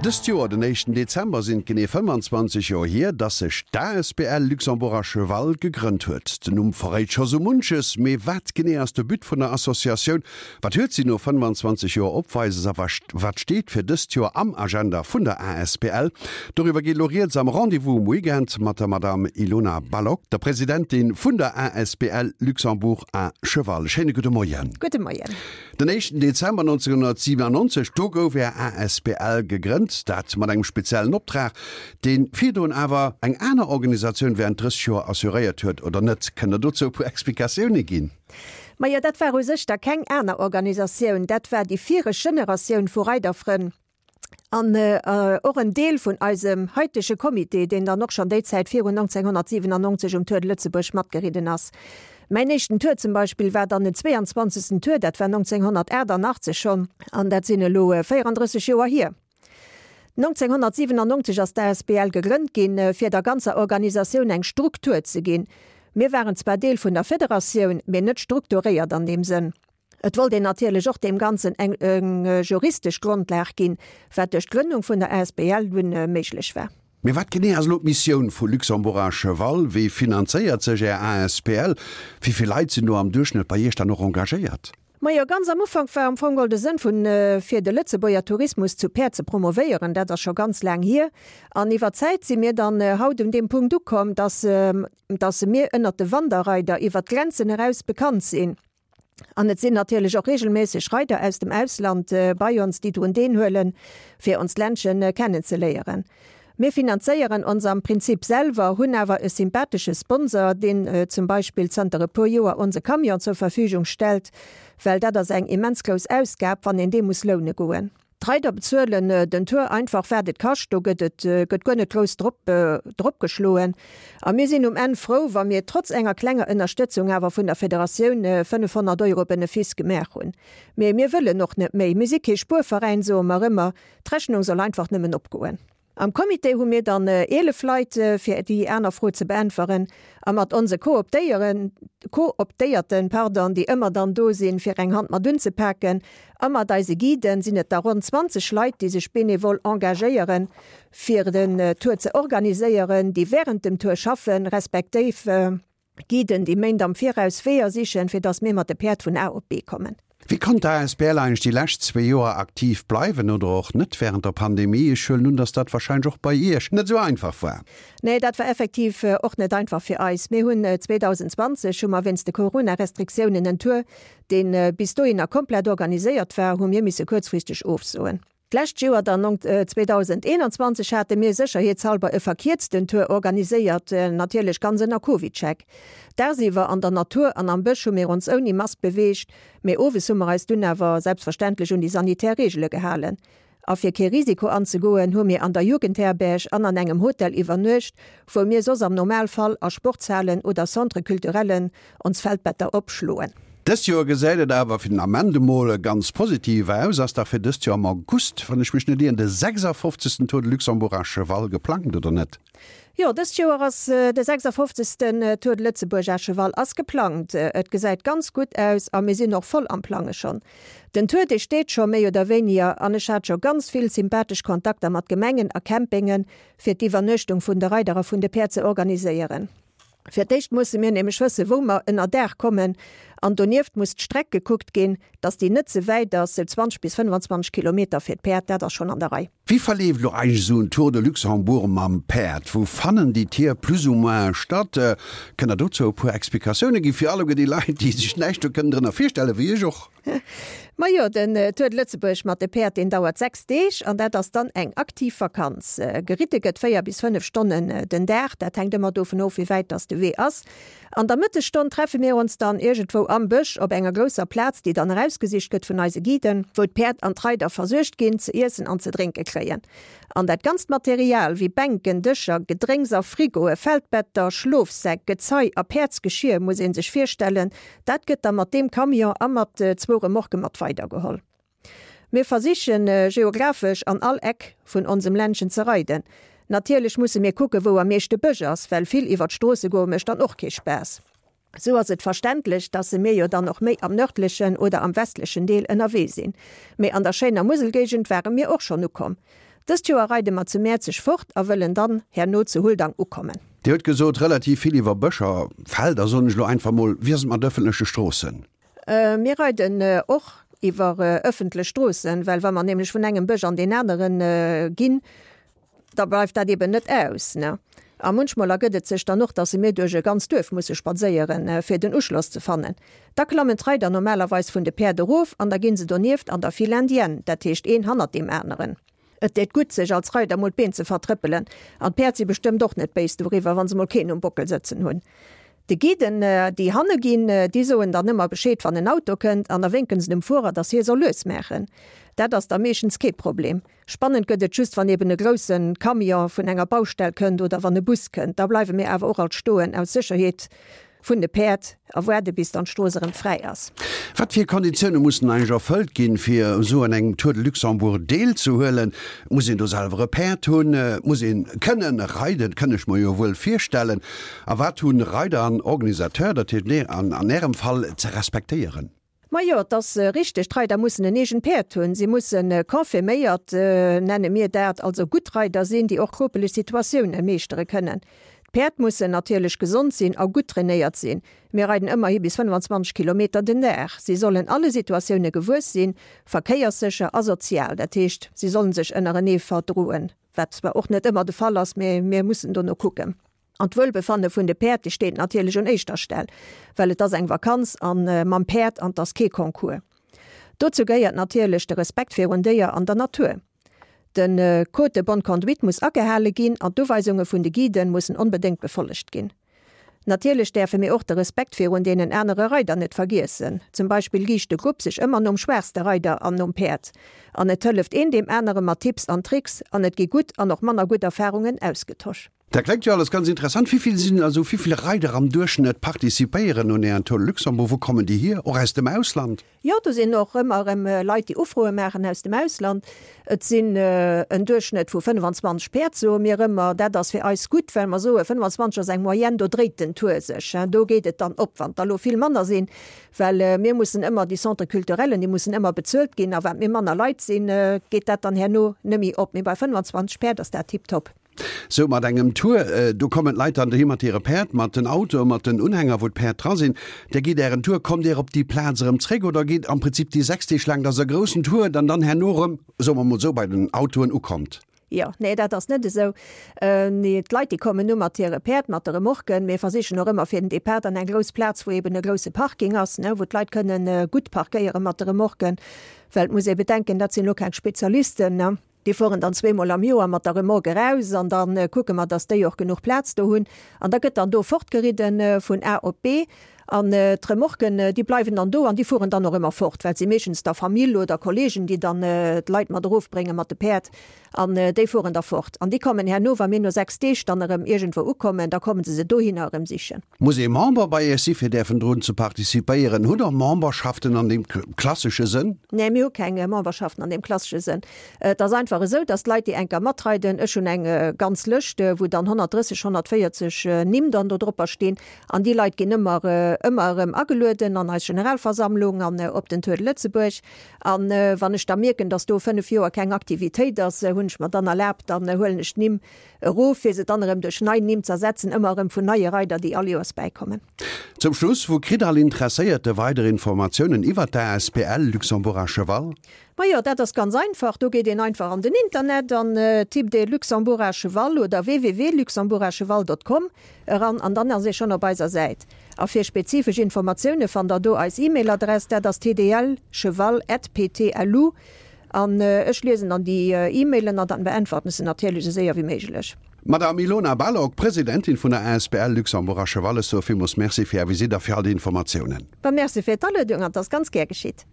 Dëst Joer, den éischten Dezember, sinn et genee 25 Joer hier, dass sech d'ASBL Luxembourg à Cheval gegrënnt huet. Den Numm verréit scho sou munches, mee wat genee ass de But vun der Associatioun? Wat huet si no 25 Joer opweises a wat steet fir dëst Joer am Agenda vun der ASBL? Doriwwer geet elo rieds am Rendez-vous um Weekend mat der Madame Ilona Balogh, der Presidentin vun der ASBL Luxembourg à Cheval. Schéine gudde Moien. Gudde Moien. Den éischten Dezember 1997, do gouf Är asbl gegrënnt, dat mat engem speziellen Optrag, dee virdrun awer eng aner Organisatioun während 30 Joer assuréiert huet, oder net? Kënnt Der dozou e puer Explikatioune ginn? Majo, dat war u sech da keng aner Organisatioun, dat war déi viregt Generatioun vu Reiderfrënn. An och en Deel vun eisem haitege Comité, deen dann och schonn déi Zäit virun 1997 um Tour de Lëtzebuerg matgeridden ass. Mäin éischten Tour zum Beispill war dann den 22. Tour, dat war 1988 schonn, an dat sinn elo 34 Joer hier. 1997 ass d'ASBL gegrënnt ginn, fir der ganzer Organisatioun eng Struktur ze ginn. Mir waren zwar Deel vun der Federatioun, mee net strukturéiert an deem Sënn. Et wollt een natierlech och deem Ganzen eng juristesch Grondlag ginn, wat duerch d'Grënnung vun der asbl dunn méiglech war. Mee wat genee ass elo d'Missioun vu Luxembourg à Cheval? Wéi finanzéiert sech Är asbl? Wéi vill Leit sinn do am Duerchschnëtt bei Iech dann och engagéiert? Majo, ganz am Ufank war am Fong geholl de Sënn vun, fir de Lëtzebuerger Tourismus zu Päerd ze promovéieren. Dat ass scho ganz laang hier. An iwwer d'Zäit si mir dann haut un deem Punkt ukomm, dass, dass mir ënnert de Wanderreider iwwer d'Grenzen eraus bekannt sinn. An et sinn natierlech och regelméisseg Reider aus dem Ausland bei ons, déi drun deenhuelen, fir onst Ländchen kennenzeléieren. Mir finanzéieren ons am Prinzip selwer, hunn awer e sympathesche Sponsor, deen zum Beispill zanter e puer Joer onse Camion zur Verfügung stellt, well dat ass eng immens grouss Ausgab, wann een dee muss loune goen. D'Reider bezuelen den Tour einfach wat et kascht, do gëtt et gëtt guer net grouss drop drop geschloen. A mir sinn um Enn frou, wa mir trotz enger klenger Ënnerstëtzung awer vun der Federatioun 500 Euro Benefice gemaach hunn. Mee mir wëllen och net méi, mir si kee Spuerveräin, soe mer ëmmer, d'Rechnung soll einfach nëmmen opgoen. Am Comité hu mir dann 11 Leit, fir déi aner Fro ze beäntweren, a mat onse Kooptéieren, Kooptéierten, pardon, déi ëmmer dann do sinn, fir eng Hand mat unzepaken, a mat eise Guiden sinn et da ronn 20 Leit, déi sech benevol engagéieren, fir den Tour ze organiséieren, déi während dem Tour schaffen, respektéiv Guiden, déi Méint am Viraus Weeër sichen, fir dass mir mat de Päerd vun A op B kommen. Wéi konnt d'ASBL eigentlech déi lescht zwee Joer aktiv bleiwen oder och net wärend der Pandemie? Ech huelen un, dass dat warscheinlech och bei Iech net esou einfach war. Nee, dat war effektiv och net einfach fir eis. Mir hunn 2020 hu mer wéinst de Corona-Restriktiounen en Tour, dee bis dohinner komplett organiséiert war, hu mir misse kuerzfristeg ofsoen. D'lescht Joer dann, 2021, hate mir sécherheetshalber e verkierzten Tour organiséiert, natierlech ganz ënner Covidcheck. Dagsiwwer an der Natur an am Bësch hu mir ons ouni Mask beweegt, mee owes hu mer eis dunn awer selbstverständlech un déi sanitär Reegele gehalen. A fir kee Risiko anzegoen, hu mir an der Jugendherberg an an engem Hotel iwwernuecht, wou mir soss am Normalfall a Sportshalen oder Centre culturellen ons Feldbetter opschloen. Dëst Joer gesäit et awer fir den Ament emol ganz positiv aus. Ass dach fir dëst Joer am August, wann ech mech net ieren, de 56. Tour de Luxembourg à Cheval geplangt, oder net? Jo, dëst Joer ass de 56. Tour de Lëtzebuerg à Cheval ass geplangt. Et gesäit ganz gutt aus a mir sinn och voll am Plange schonn. Den Tour, dee steet scho méi oder wéiniger an ech hat scho ganz vill sympathesch Kontakter mat Gemengen a Campinge fir d'Iwwernuechtung vun de Reider a vun de Päerd ze organiséieren. Fir d'éischt musse mir nämlech wëssen, wou mer ënner Daach kommen, an donieft muss d'Streck gekuckt ginn, dass déi net ze wäit ass, sou 20 bis 25 Kilometer fir d'Päerd, dat ass schonn an der Rei. Wéi verleeft elo eigentlech esou en Tour de Luxembourg mam Päerd? Wou fannen déi Tier plus ou moins statt? Kënnt der dozou e puer Explikatioune ginn, fir alleguer déi Leit, déi sech näischt do kënnen drënner virstellen, wéi ech och? Majo, den Tour de Lëtzebuerg mat de Päerd, deen dauert 6 Deeg an dat ass dann eng aktiv Vakanz. Geritte gëtt 4 bis 5 Stonnen den Dag, dat hänkt ëmmer dovun of, wéi wäit dass de Wee ass. An der Mëttesstonn treffe mir ons dann iergendwou am Bësch op enger grousser Plaz, déi dann erausgesicht gëtt vun eise Guiden, wou d'Päerd an d'Reider versuergt ginn, ze iessen an ze drénke kréien. An dat ganzt Material, wéi Bänken, Dëscher, Gedrénks a Frigoe, Feldbetter, Schlofsäck, Gezei a Päerdsgeschier, muss ee sech virstellen, Dat gëtt da mat deem Camion a mat zwou Remorquë mat weidergeholl. Mir versichen, geographesch an all Eck vun onsem Ländchen ze reiden. Natierlech musse mir kucken, wou am meeschte Bësch ass, well vill iwwer d'Stroosse goe mécht dann och kee Spaass. Sou ass et verständlech, dass se mir jo dann och méi am nërdlechen oder am westlechen Deel ënnerwee sinn. Mee an der schéiner Muselgéigend ware mir och schonn ukomm. Dëst Joer reide mer zu Mäerzeg fort a wëllen dann herno zu Huldang ukommen. Dir hutt gesot, relativ vill iwwer Bëscher, Felder, soen ech elo einfach mol. Wéi ass et mat ëffentleche Stroossen? Mir reiden och iwwer ëffentlech Stroossen, well wa mer nämlech vun engem Bësch an deen anere ginn, da bleift dat eben net aus. A munchmol ergëtt et sech dann och, dass mir duerch e ganzt Duerf musse spadséieren, fir den Uschloss ze fannen. Da klammen d'Reider normalerweis vun de Päerd erof an da ginn se donieft an der File indienne, dat heescht een hannert deem aneren. Et deet gutt, sech als Reider mol d'Been ze vertrëppelen. An d'Päerd si bestëmmt och net béis doriwwer, wa se mol keen um Bockel sëtzen hunn. De Guiden, déi hanne ginn, déi soen dann ëmmer Bescheed, wann en Auto kënnt, an da wénken se dem Fuerer, dass hie soll lues maachen. Dat ass da meeschtens kee Problem. Spannend gëtt et just, wann eben e grousse Camion vun enger Baustell kënnt oder wann e Bus kënnt. Da bleiwe mir awer och alt stoen, aus Sécherheet vun de Päerd a waarde bis dann d'Strooss erëm fräi ass. Wat fir Konditioune mussen eigentlech erfëllt ginn, fir esou an engem Tour de Luxembourg deelzehuelen? Muss een do selwer e Päerd hunn? Muss een kënnen reiden? Kënn ech mer jo wuel virstellen. A wat hunn Reider an Organisateur, dat heescht an Ärem Fall, ze respektéieren? Majo, et ass richteg, d'Reider mussen en eegent Päerd hunn. Si musse confirméiert, nenne mir dat, also gutt Reider sinn, déi och kropeleg Situatioune meeschtere kënnen. D'Päerd mussen natierlech gesond sinn a gutt trainéiert sinn. Mir reiden ëmmerhi bis 25 Kilometer den Dag. Si sollen alle Situatioune gewuess sinn, verkéierssécher a sozial, dat heescht, si sollen sech ënnerenee verdroen, wat zwar och net ëmmer de Fall ass, mee mir mussen dono kucken. An d'Wuelbefanne vun de Päerd, déi steet natierlech un éischter Stell, well et ass eng Vakanz a mam Päerd an 't ass kee Concours. Dozou gehéiert natierlech de Respekt virun Déier an der Natur. De Code de bonne conduite muss agehale ginn an d'Uweisunge vun de Guiden mussen onbedéngt befollegt ginn. Natierlech däerfe mir och de Respekt virun deenen anere Reider net vergiessen. Zum Beispill riicht de Grupp sech ëmmer nom schwaachste Reider an nom Päerd. An et hëlleft een deem anere mat Tipps an Tricks an et gi gutt an och manner gutt Erfarungen ausgetosch. Dat klengt jo alles ganz interessant. Wéi vill sinn also, wéi vill Reider am Duerchschnëtt participéieren un Ären Tour de Luxembourg? Wou kommen déi hier? Och aus dem Ausland? Jo, do sinn och ëmmer erëm Leit, déi Ufroe maachen aus dem Ausland. Et sinn en Duerchschnëtt vu 25 Päerd, soe mir ëmmer. Dat ass fir eis gutt, well mer soe 25 ass eng Moyenne, do dréit den Tour sech, do geet et dann op. Wann der elo vill manner sinn, well mir mussen ëmmer, déi Centres culturellen, déi mussen ëmmer bezuelt ginn a wat mir manner Leit sinn, geet dat dann herno net méi op. Mee bei 25 Päerd ass dat tiptop. Sou mat engem Tour, do kommen d'Leit dann dohi mat hire Päerd, mat den Autoe, mat den Unhänger, wou d'Päerd dra sinn. Dir gitt Ären Tour, kommt Dir op déi Plaz erëm zréck oder geet am Prinzip déi 6 Deeg laang, dass e groussen Tour dann dann herno erëm, soe mer mol sou, bei den Autoen ukommt? Jo, nee, dat ass net esou. Nee, d'Leit, déi kommen nu mat hire Päerd, mat de Remorquen. Mir versichen och ëmmer fir den Depart an eng grouss Plaz, wou eben e grousse Parking ass, ne, wou d'Leit kënnen gutt parkéiere mat de Remorquen, well et muss ee bedenken, dat sinn elo keng Spezialisten, ne. Déi fueren dann zweemol am Joer mat der Remorque eraus an da kucke mer, dass déi och genuch Plaz do hunn. An da gëtt dann do fortgeridden vun A op B. An d'Remorquen, déi bleiwen dann do an déi fueren dann och ëmmer fort, well et si meeschtens da Famill oder Kollegen, déi dann d'Leit mat erofbrénge mat de Päerd. An déi fueren da fort. An déi kommen herno, wa mir no 6 Deeg dann erëm iergendwou ukommen, da komme se se dohinner erëm sichen. Muss ee Member bei Iech si fir däerfen drun ze participéieren? Hutt Der Memberschaften an deem klassesche Sënn? Nee, mir hu keng Memberschaften an deem klassesche Sënn. Et ass einfach esou, dass d'Leit, déi enker matreiden, ech hunn eng ganz Lëscht, wou dann 130, 140 Nimm dann do dropper stinn, an déi Leit ginn ëmmer, ëmmer erëm agelueden an eis Generalversammlung an op den Tour de Lëtzebuerg. An wann ech da mierken, dass do 5 Joer keng Aktivitéit ass, hunn ech mer dann erlaabt, dann huelen ech d'Nimm erof, fir se dann erëm duerch nei Nimm z'ersetzen, ëmmer erëm vun neie Reider, déi all Joers bäikommen. Zum Schluss, Wou kritt all Interesséierte weider Informatiounen iwwer d'ASBL Luxembourg à Cheval? Majo, dat ass ganz einfach, do geet een einfach an den Internet an tippt ee Luxembourg à Cheval oder www.luxembourgacheval.com eran an dann ass ee schonn op eiser Säit. A fir spezifesch Informatioune fannt der do eis E-Mail-Adress, dat ass tdlcheval@ptlu. An ech liesen dann déi E-Mailen an dann beäntwerten ech se natierlech esou séier wéi méiglech. D'Madame Ilona Balogh, Presidentin vun der asbl Luxembourg à Cheval, ech soe villmools Merci fir Är Visitt a fir all déi Informatiounen. Merci fir d'Aluedung an 't ass ganz gär geschitt.